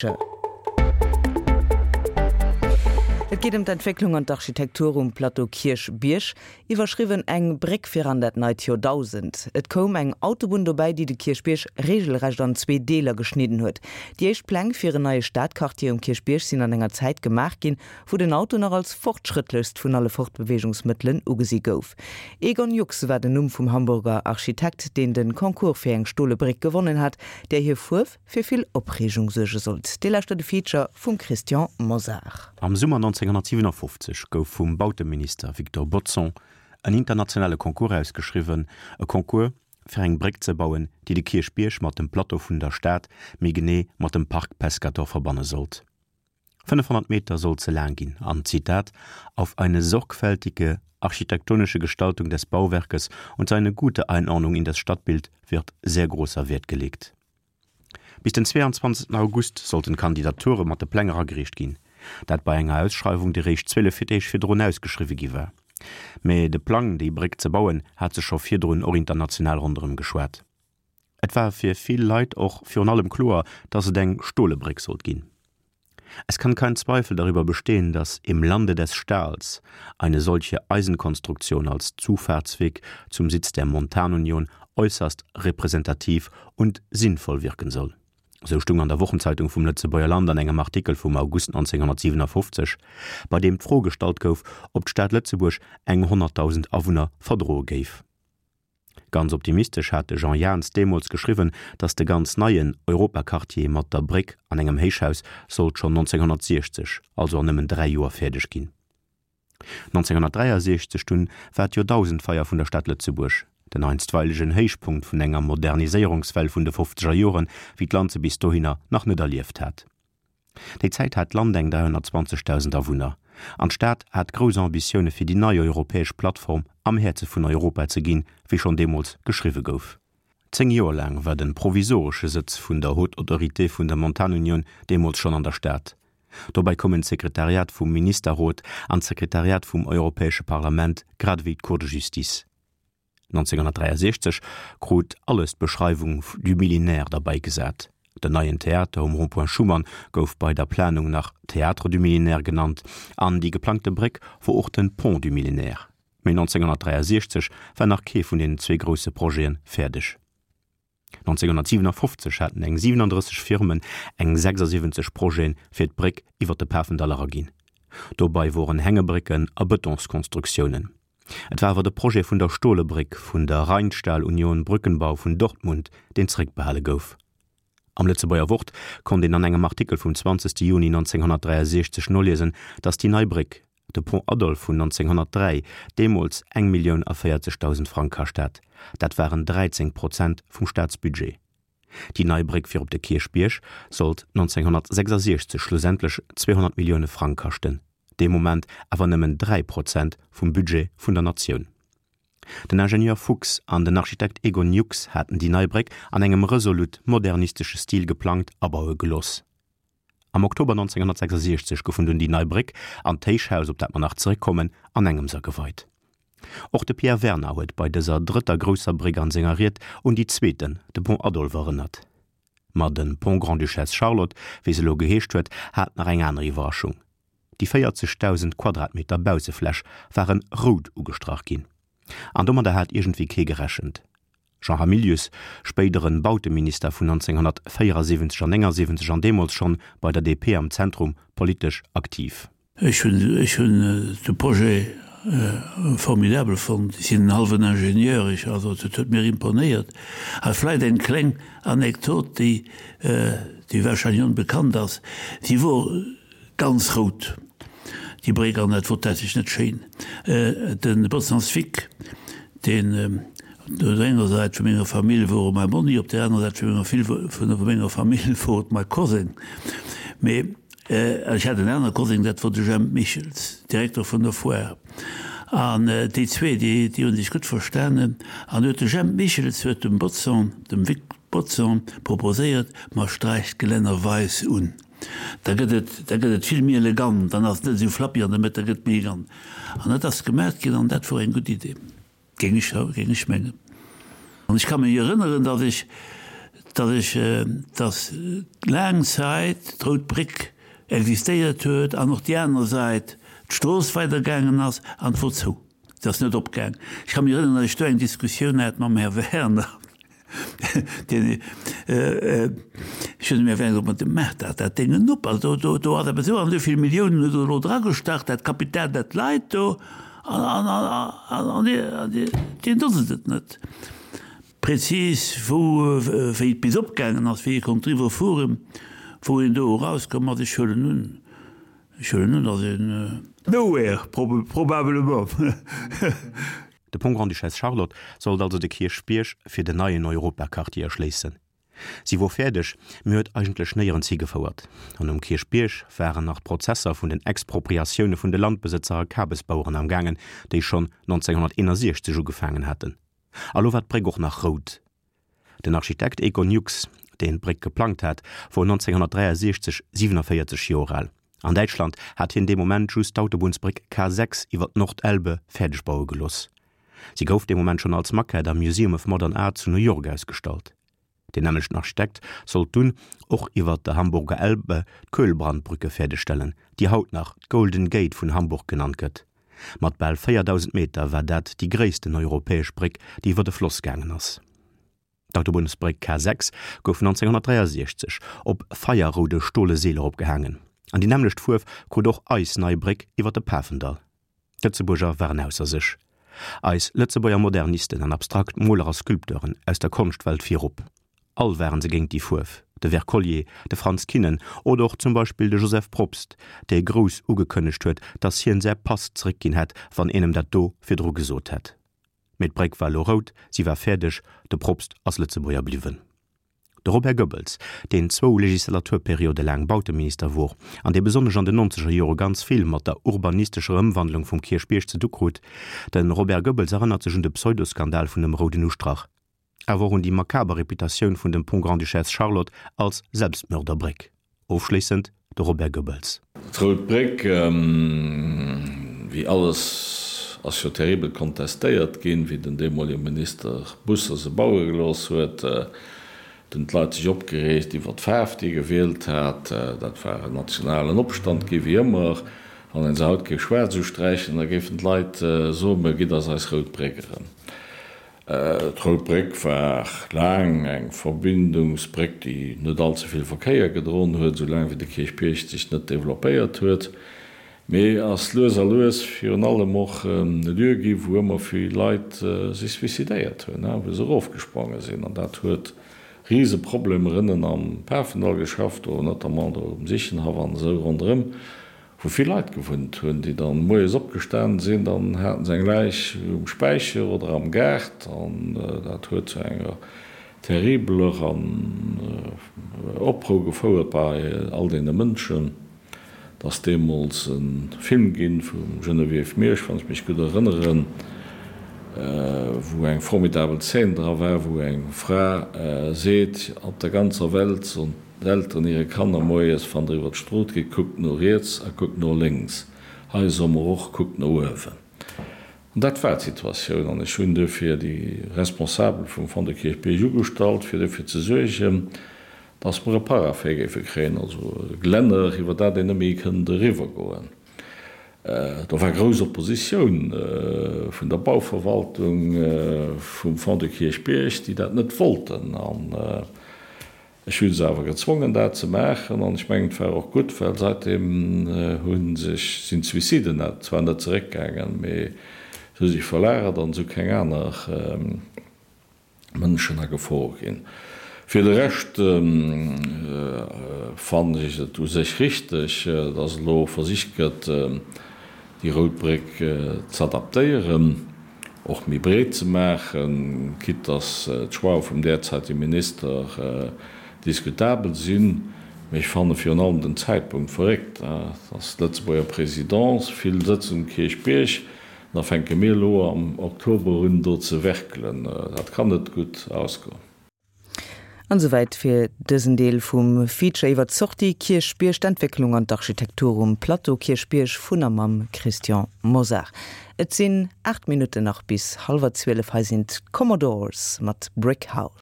Et geet ëm d'Entwécklung an d'Architektur um Plateau Kierchbierg, iwwerschriwwen Eng Bréck fir an dat neit Joerdausend. Et koum eng Autobunn dobäi, déi de Kierchbierg reegelrecht an zwee Deeler geschnidden huet. Déi éischt Pläng fir en neie Stadquartier um Kierchbierg sinn an enger Zäit gemaach ginn, wou den Auto nach als fortschrëttlechst vun alle Fortbeweegungsmëttelen ugesi gouf. Egon Jux war den Numm vum Hamburger Architekt, deen de Concours fir eng stole Bréck gewonnen hat, där hir Fuerf, fir vill Opreegung suerge sollt. Dir lauschtert e Feature vum Christian Mosar. Am Summer 1957 gouf vum Bauteminister Victor Bodson en internationale Concours ausgeschriwwen, e Concours fir eng Bréck ze bauen, déi de Kierchbierg mat dem Plateau vun der Stad, méi genee mat dem Parc Pescator verbanne sollt. 500 Meter sollt se laang ginn an, Zitat, auf eine sorgfältige architektonische Gestaltung des Bauwerkes und seine gute Einordnung in das Stadtbild wird sehr großer Wert gelegt. Bis den 22 August sollten d'Kandidature mat de Pläng eragereecht ginn, dat bei enger Ausschreiwung, déi réischt 12 Deeg virdrun ausgeschriwwe gi war. Mee de Plang, déi Bréck ze bauen, hat sech scho virdrun och international ronderëm geschwat. Et war fir vill Leit och virun allem kloer, datt et eng stole Bréck sollt ginn. Es kann kein Zweifel darüber bestehen, dass im Lande des Stahls eine solche Eisenkonstruktion als Zufahrtsweg zum Sitz der Montanunion äußerst repräsentativ und sinnvoll wirken soll. Sou stung an der Wochenzeitung vum Lëtzebuerger Land an engem Artikel vum August 1957, bei deem d'Fro gestallt gouf, ob d'Stad Lëtzebuerg eng 100.000 Awunner verdroe géif. Ganz optimistesch hat de Jean Jans deemools geschriwwen, datt de ganz neien Europaquartier mat der Bréck an engem Héichhaus sollt schonn 1960, also an nëmmen 3 Joer fäerdeg ginn. 1963 dunn war d'Joerdausendfeier vun der Stad Lëtzebuerg, den einstweilegen Héichpunkt vun enger Moderniséierungswell vun de fofzeger Joren, wéi d'Land se bis dohinner nach net erlieft hat. Déi Zäit hat d'Land eng 320.000 Awunner, an d'Stad hat grouss Ambitioune fir déi nei europäesch Plattform am Häerze vun Europa ze ginn, wéi schonn deemools geschriwwe gouf. Zéng Joer laang war de provisoresche Sëtz vun der Haute Autorité vun der Montanunioun deemools schonn an der Stad. Dobäi koumen d'Sekretariat vum Ministerrot an d'Sekretariat vum Europäesche Parlament, grad ewéi d'Cour de Justice. 1963 krut alles d'Beschreiwung du Millénaire derbäigesat. Den neien Theater um Rond-point Schuman gouf bei der Planung nach Théâtre du Millénaire genannt an déi geplangte Bréck wor och den Pont du Millénaire. Mee 1963 war nach kee vun deenen zwee grousse Projete fäerdeg. 1957 haten eng 37 Firmen eng 76 Projete fir d'Bréck iwwer de Pafendall eraginn. Dobei woren Hängebrécken a Betonskonstruktiounen. Et war awer de Projet vun der stole Bréck vun der Rheinstahl-Union Brückenbau vun Dortmund, deen zeréckbehale gouf. Am Lëtzebuerger Wort konnt een an engem Artikel vum 20 Juni 1963 noliesen, datt déi nei Bréck, de Pont Adolphe vun 1903, deemools eng Millioun a 40.000 Frang kascht hat. Dat waren 13 Prozent vum Staatsbudget. Déi nei Bréck fir op de Kierchbierg sollt 1966 schlussendlech 200 Millioune Frang kaschten, dee Moment awer nëmmen 3 Prozent vum Budget vun der Natioun. Den Ingenieur Fuchs an den Architekt Egon Jux haten déi nei Bréck an engem resolut modernistesche Stil geplangt abaue gelooss. Am Oktober 1966 goufen dunn déi nei Bréck an d'Héichhaus, op dat mer nach zeréckkommen, an engems ageweit. Och de Pierre Werner huet bei dëser drëtter grousser Bréck an senger Ried un déi zweeten, de Pont Adolphe, erënnert. Ma de Pont Grande-Duchesse Charlotte, wéi se elo geheescht huet, hat nach eng aner Iwwerraschung, Déi 40.000 Quadratmeter Baussefläch ware rout ugestrach ginn. An domadder hat iergendwéi kee gerechent. Jean Hamilius, spéidere Bauteminister vun 1974 an 79 an deemools schonn bei der DP am Zentrum politesch aktiv. Ech hunn, ech hunn de Projet formidabel fonnt. Ech sinn en hallwen Ingenieur, ech, also dat huet mir imponéiert. A vläicht eng kleng Anekdot, déi, déi wahrscheinlech onbekannt ass, Si wor Ganz rout, déi Bréck, an dat wor tatsächlech net schéin. De Bozans Vic, deen op der enger Säit vu menger Famill wor e mäi Monni, op der anerer Säit vu menger vu menger Famill wor et mäi Koseng. Mee ech hat en anere Koseng, dat wor de Jemp Michels, Direkter vun der Foire. An déi zwee, déi déi hu sech gutt verstanen. An huet de Jemp Michels huet dem Bozon, dem Vic Bozon proposéiert, Ma sträicht d'Gelänner wäiss un. Da gëtt et, da gëtt et vill méi elegant, dann ass et net esou flappi an der Mëtt, da gëtt et méi elegant. An dat ass gemaat ginn an dat wor eng gutt Idee, géing ech, géing ech mengen. An ech ka mech erënneren, datt ech. datt ech, datt laang Zäit d'Rout Bréck existéiert huet an och déi aner Säit d'Strooss weidergaangen ass an et wor zou. Et ass net opgaang. Ech ka mech erënneren, datt ech do eng Diskussioun hat mam Här Werner, deen, ech hunn dem Här Werner gesot, Ma maach dach dat Déngen op, also do, do ass eppes esou an esou vill Milliounen hutt Der elo dragestach, dat Kapital, dat leit do an, an, an, an Dir notzt et net. Prezis wou, wéi et bis opgaangen ass, wéi ee konnt driwwer fueren, wou een do erauskomm ass, ech huelen un, ech huelen un, datt een. Nowhere, probablement. De Pont Grande-Duchesse Charlotte sollt also de Kierchbierg fir den neien Europaquartier erschléissen. Si wor fäerdeg, mee huet eigentlech néierens higefouert. An um Kierchbierg waren nach d'Prozesser vun den Expropriatioune vun de Landbesëtzer a Kabesbaueren am gaangen, déi schonn 1961 ugefaangen haten. A lo war d'Bréck och nach rout. Den Architekt Egon Jux, deen d'Bréck geplangt hat, wor 1963 47 Joer al. An Däitschland hat hien dee Moment just d'Autobunnsbréck K6 iwwer d'Nordelbe fäerdeg baue gelooss. Si gouf dee Moment schonn als Maquette am Museum of Modern Art zu New York ausgestallt. Deen nämmlechten Architekt sollt dunn och iwwer der Hamburger Elbe d'Köhlbrandbrücke fäerdegstellen, déi haut nach d'Golden Gate vun Hamburg genannt gëtt. Mat bal 4.000 Meter war dat déi gréissten europäesch Bréck, déi iwwer e Floss gaangen ass. D'Autobunnsbréck K6 gouf 1963 op feierroude stole Seeler opgehaangen, an déi nämmlecht Fuerf krut och eis nei Bréck iwwer de Pafendall. D'Lëtzebuerger waren ausser sech. Eis Lëtzebuerger Modernisten an abstrakt Moler a Sculpteuren aus der Konschtwelt virop. All waren se géint déi Fuerf, de Wercollier, de Frantz Kinnen oder och zum Beispill de Joseph Probst, dee grouss ugekënnegt huet, datt hien säi Pass zeréckginn hätt, wann een em dat do virdru gesot hätt. Mee d'Bréck war elo rout, si war fäerdeg, de Probst ass Lëtzebuerger bliwwen. De Robert Goebbels, deen zwou Legislaturperiode laang Bauteminister wor an dee besonnesch an den nonzeger Jore ganz vill mat der urbanistescher Ëmwandlung vum Kierchbierg ze du krut, de Robert Goebbels erënnert sech un de Pseudoskandal vun dem rouden Ustrach, awer och un déi makaber Reputatioun vun dem Pont Grande-Duchesse Charlotte als Selbstmörderbréck. Ofschléissend de Robert Goebbels. D'Rout Bréck, wéi alles, ass jo terribel kontestéiert ginn, wéi den deemolege Minister Busser se baue gelooss huet. Do hunn d'Leit sech opgereegt iwwer d'Faarf, déi e gewielt hat. Dat war en nationalen Opstand gi wéi ëmmer. Wann een se haut géif schwaarz usträichen, da géifen d'Leit soen, Mä gitt eis eis Rout Bréck erëm. D'Rout Bréck war laang eng Verbindungsbréck, déi net all ze vill Verkéier gedroen huet, esou laang wéi de Kierchbierg sech net developpéiert huet, mee ass lues a lues virun allem och e Lieu gi wou ëmmer vill Leit sech suicidéiert hunn, wou se erofgespronge sinn. An dat huet rise Problemer ënnen am Pafendall geschafft, do notamment do um Sichenhaff an esou ronderëm. wou vill Leit gewunnt hunn, déi dann moies opgestan sinn, dann haten se eng Läich um Späicher oder am Gaart an dat huet zu enger terribeler Oprou gefouert bei all deene Mënschen. Et ass deemools e Film ginn vum Geneviève Miersch, wann ech mech gutt erënneren, wou eng formidabel Zeen dra war, wou eng Fra seet, Op der ganzer Welt soen D'Elteren hire Kanner moies, Wann der iwwer d'Strooss gitt, kuckt no riets a kuckt no lénks. Hei soe mer och, Kuckt no uewen. An dat war d'Situatioun. An ech hunn duerfir déi Responsabel vum Fonds de Kierchbierg ugestallt, fir duerfir ze suergen, dass mer e Paraffé géife kréien, also e Gelänner, iwwer dat een net méi kënnt eriwwergoen. Do war grouss Oppositioun vun der Bauverwaltung, vum Fonds de Kierchbierg, déi dat net wollten. An Ech hu se awer gezwongen dat ze maachen an ech mengen et war och gutt, well seitdeem hu sech, sinn d'Suiciden net, zwar net zeréckgaangen, mee se hu sech verlagert an esou keng aner Mënschen a Gefor ginn. Fir de Rescht fannen ech et u sech richteg, datt elo versicht gëtt, déi Rout Bréck z'adaptéieren, och méi breet ze maachen, quitte dass d'Choixë vum derzäitege Minister diskutabel sinn. Mee ech fanne virun allem den Zäitpunkt verréckt. Et ass d'Lëtzebuerger Présidence, vill sëtzen um Kierchbierg, an da fänke mir elo am Oktober un do ze werkelen. Dat kann net gutt ausgoen. An esouwäit fir dësen Deel vum Feature iwwer d'Sortie Kierchbierg, d'Entwécklung an d'Architektur um Plateau Kierchbierg vun a mam Christian Mosar. Et sinn 8 Minutten nach bis hallwer 12. Hei sinn d'Commodores mat Brick House.